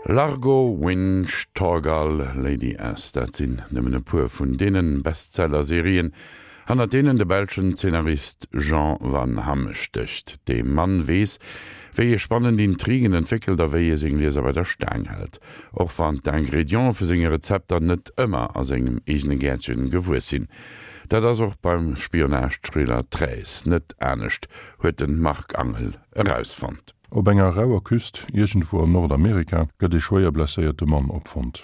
Largo, Winch, Thorgal, Lady S, dat sinn nëmmen e puer vun deene Bestseller-Serien, hannert deenen de belschen Zeenarist Jean Van Hamme stécht. Dee Mann weess, wéi e spannend Intrigen entwéckelt a wéi e seng Lieser bei der Staang hält, och wann d'Ingrediente vu senge Rezepter net ëmmer a sengem eegene Gäertchen gewuess sinn. Dat ass och beim Spionage-Thriller Treize net anescht, huet de Marc Angel erausfonnt. Op enger rauer Küst iergendwou an Nordamerika gëtt ee schwéier blesséierte Mann opfonnt.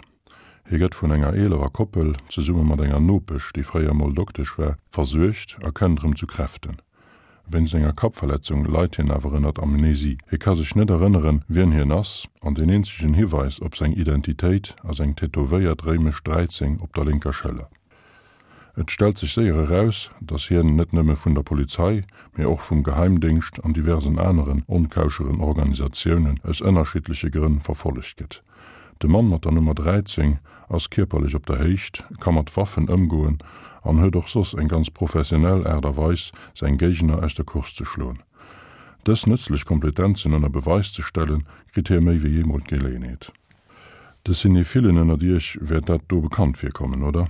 Hie gëtt vun enger eelerer Koppel, zesumme mat enger Nopesch, déi fréier mol Doktesch war, versuergt a kënnt erëm zu Kräften. Wéinst enger Kappverletzung leit hien awer ënnert Amnesie. Hie ka sech net erënneren, wien hien ass, an deen eenzegen Hiweis op seng Identitéit ass eng tätowéiert réimesch 13 op der lénker Schëller. Et stellt sech séier eraus, datt hien net nëmme vun der Polizei, mee och vum Geheimdéngscht an diversen aneren onkauscheren Organisatiounen aus ënnerschiddleche Grënn verfollegt gëtt. De Mann mat der Nummer 13 ass kierperlech op der Héicht, ka mat Waffen ëmgoen an huet och soss eng ganz professionell Aart a Weis, seng Géigner aus der Course ze schloen. Dës nëtzlech Kompletenzen ënner Beweis ze stellen, kritt hie méi wéi eemol d'Geleeënheet. De Cinéphilen ënnert iech wäert dat do bekannt virkommen, oder?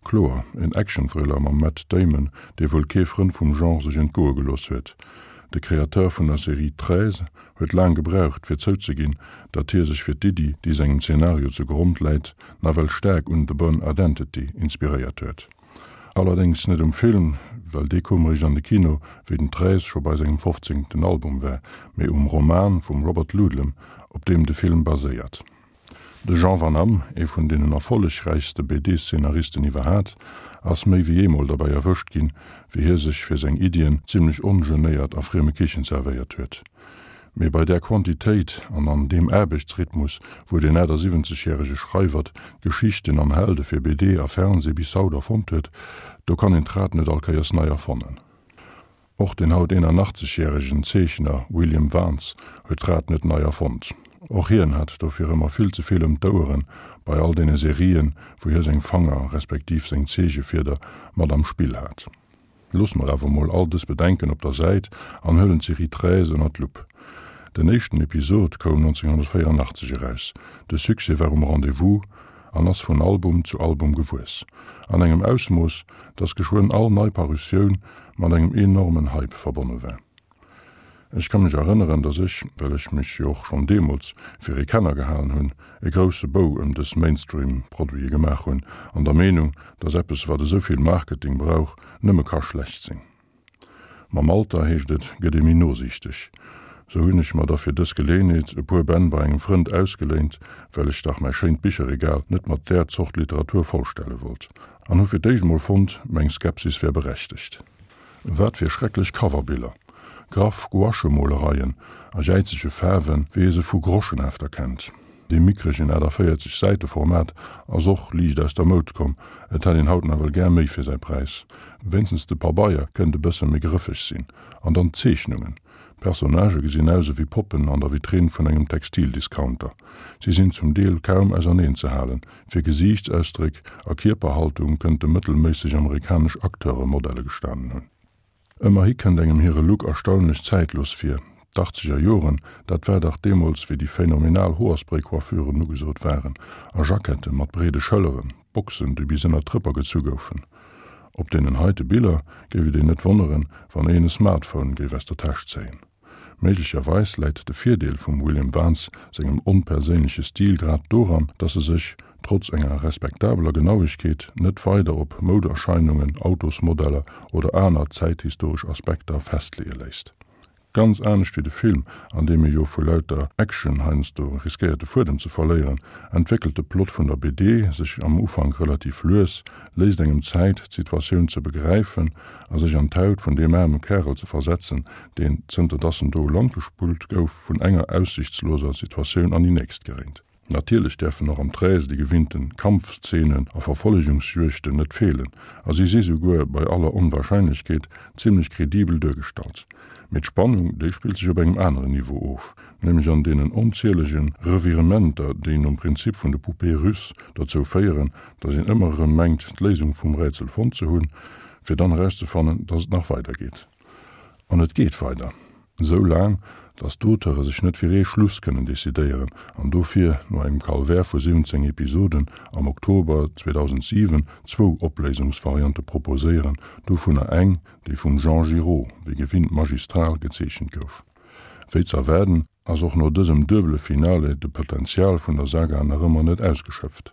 Kloer, en Action-Thriller mam Matt Damon, dee wuel kee Frënd vum Genre sech entgoe gelooss huet. De Créateur vun der Serie Treize huet laang gebraucht, fir zouzeginn, datt hie sech fir d'Iddi, déi sengem Zenario zu Grond läit, nawell staark un The Bourne Identity inspiréiert huet. Allerdéngs net um Film, well dee koum eréischt an de Kino, wéi den Treize scho bei sengem fofzéngten Album war, mee um Roman vum Robert Ludlum, op deem de Film baséiert. De Jean Van Hamme, ee vun deenen erfollegräichste BD-Szenaristen iwwerhat, ass méi wéi eemol derbäi erwëscht ginn, wéi hie sech fir seng Iddien zimmlech ongenéiert a frieme Kichen zerwéiert huet. Mee bei där Quantitéit an an deem Aarbechtsrhythmus, wou deen 78 järege Schreiwert Geschichten an Helde fir BD a Fernseh bis haut erfonnt huet, do kann een d'Rad net all Kéiers nei erfannen. Och den haut 81 järegen Zeechner William Vance huet d'Rad net nei erfonnt. Och hien hat dofir ëmmer vill ze vill ëm d'Oueren bei all deene Serien, wou hie seng Fanger respektiv seng Zeechefieder mat am Spill hat. Loosse mer awer mol all dës Bedenken op der Säit an huelen d'Serie Treize ënner d'Lupp. Den éischten Episod koum 1984 eraus. De Succès war um Rendez-vous an ass vun Album zu Album gewuess. An engem Ausmooss, dass geschwënn all nei Parutioun mat engem enormen Hype verbonne war. Ech ka mech erënneren, dass ech, well ech mech jo och schonn deemools fir ee Kenner gehalen hunn, e grousse Bou ëm dës Mainstream-Produite gemaach hunn, an der Meenung, dass eppes, wat esou vill Marketing brauch, nëmme ka schlecht sinn. Mam Alter, heescht et, gëtt ee méi nosiichteg. Sou hunn ech mer da fir dës Geleeënheet e puer Bänn bei engem Frënd ausgeléint, well ech dach mäi schéint Bicherregal net mat där Zort Literatur vollstelle wollt, an hu fir d'éischt mol fonnt, meng Skepsis wär berechtegt. Wat fir schrecklech Coverbiller! Graff Gouache-Molereien a jäizege Faarwen, wéi ee se vu Groschenhefter kennt. Dee mickregen 48 Säite-Format ass och liicht aus der Moud komm, et hätt een haut nawell gär méi fir säi Präis. Wéinstens de Pabeier kënnt e bësse méi grëffeg sinn. An dann d'Zeechnungen! D'Personnagë gesinn aus ewéi Poppen an der Vitrinn vun engem Textildiscounter. Si sinn zum Deel kaum auserneen ze halen, Fir Gesiichtsausdréck a Kierperhaltung kënnte mëttelméisseg amerikanesch Acteure Modelle gestanen hunn. Ëmmerhi kënnt engem hire Look erstaunlech zäitlos vir. D'Achtzeger Joren, dat war dach deemools, wéi déi phänomenal Hoerspray-Coiffuren ugesot waren a Jackette mat breede Schëlleren, Boxen, déi bis ënner d'Rëpper gezu goufen. Op deenen heite Biller géif et een net wonneren, wann een e Smartphone géif aus der Täsch zéien. Méiglecherweis läit de Virdeel vum William Vance sengem onperséinleche Stil grad doran, datt e sech, trotz enger respektabeler Genauegkeet, net weider op Mouderscheinungen, Autosmodeller oder aner zäithistoresch Aspekter festleeë léisst. Ganz anescht wéi de Film, an deem ee jo vu lauter Action heiansdo riskéiert de Fuedem ze verléieren, entwéckelt de Plot vun der BD sech am Ufank relativ lues, léisst engem Zäit, d'Situatioun ze begräifen a sech an d'Haut vun deem aarme Kärel ze versetzen, deen, zënter dass en do u Land gespullt gouf, vun enger aussichtsloser Situatioun an déi nächst geréint. Natierlech däerfen och am Treize déi gewinnten Kampfszenen a Verfollegungsjuegten net feelen, a si si souguer, bei aller Onwahrscheinlechkeet, zimmlech kredibel duergestallt. Mee d'Spannung, déi spillt sech op engem aneren Niveau of, nämlech an deenen onzielege Revirementer, déi nom Prinzip vun de Poupées russes dozou féieren, dass een ëmmer erëm mengt, d'Léisung vum Rätsel fonnt ze hunn, fir dann erauszefannen, dass et nach weidergeet. An et geet weider. Esou laang, Dass d'Auteure sech net fir ee Schluss kënnen decidéieren an dofir, no engem Calvaire vu 17 Episoden, am Oktober 2007 zwou Opléisungsvariante proposéieren, dovunner eng, déi vum Jean Giraud, wéi gewinnt magistral, gezeechent gouf. Wéi z'erwaarden, ass och no dësem duebele Finale de Potential vun der Saga nach ëmmer net ausgeschöpft.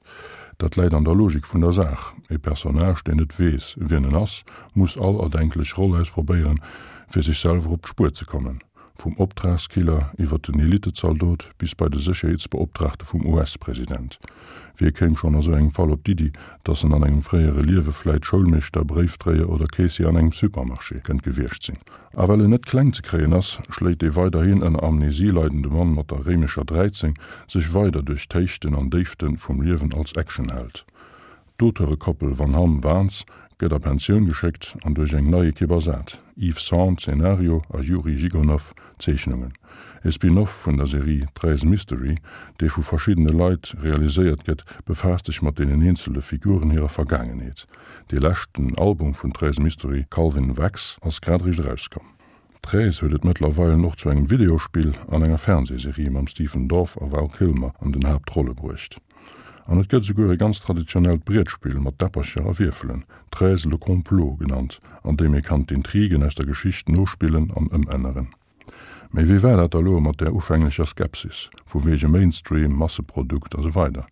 Dat läit an der Logik vun der Saach, E Personnage, deen net weess, wien en ass, muss all erdenklech Roll ausprobéieren, fir sech selwer op d'Spuer ze kommen. Vum Optragskiller iwwer den Elitezaldot bis bei de Sécherheetsbeoptraagte vum US-President. Wie kéim schonn a sou engem Fall op d'Iddi, dass en an engem fréiere Liewe vläit Schoulmeeschter, Bréifdréier oder Caissier an engem Supermarché kënnt gewiescht sinn? A well en net kleng ze kréien ass, schléit dee weiderhin ënner Amnesie leidende Mann mat der réimescher 13 sech weider duerch d'Héichten an Déifte vum Liewen als Actionheld. D'Auteurekoppel Van Hamme-Waans gëtt a Pensioun geschéckt an duerch eng nei Ekipp ersat, Yves Sand, Zenario, a Yuri Zhigunov, Zeechnungen. E Spin-off vun der Serie Treize Mystery, dee vu verschiddene Leit realiséiert gëtt, befaasst sech mat deenen eenzele Figuren hirer Vergaangenheet. Dee leschten Album vun Treize Mystery, Calvin Wax, ass grad eréischt erauskomm. Treize huet et mëttlerweilen och zu engem Videospill an enger Fernsehserie mam Stephen Dorff a Val Kilmer an den Haaptrolle bruecht. An et gëtt esouguer e ganz traditionellt Brietspill mat Däppercher a Wierfelen, Treize le complot genannt, an deem ee kann d'Intrigen aus der Geschicht nospillen an ëmänneren. Mee wéi war dat da lo mat där ufänglecher Skepsis, vu wege Mainstream, Masseprodukt a sou weider?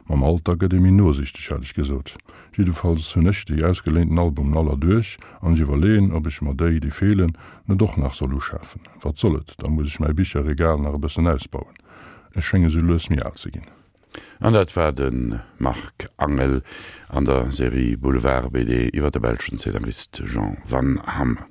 Mam Alter gëtt ee méi nosichteg, hat ech gesot. Jiddefalls hunn ech déi ausgeléinten Albumen all erduerch an ech iwwerleeën, ob ech mer déi, déi feelen, net och nach soll uschafen. Wat soll et, da muss ech mäi Bicherregal nach e bëssen ausbauen. Ech schénge sou lues méi al ze ginn. An dat war de Marc Angel an der Serie Boulevard BD iwwer de belschen Zeenarist Jean Van Hamme.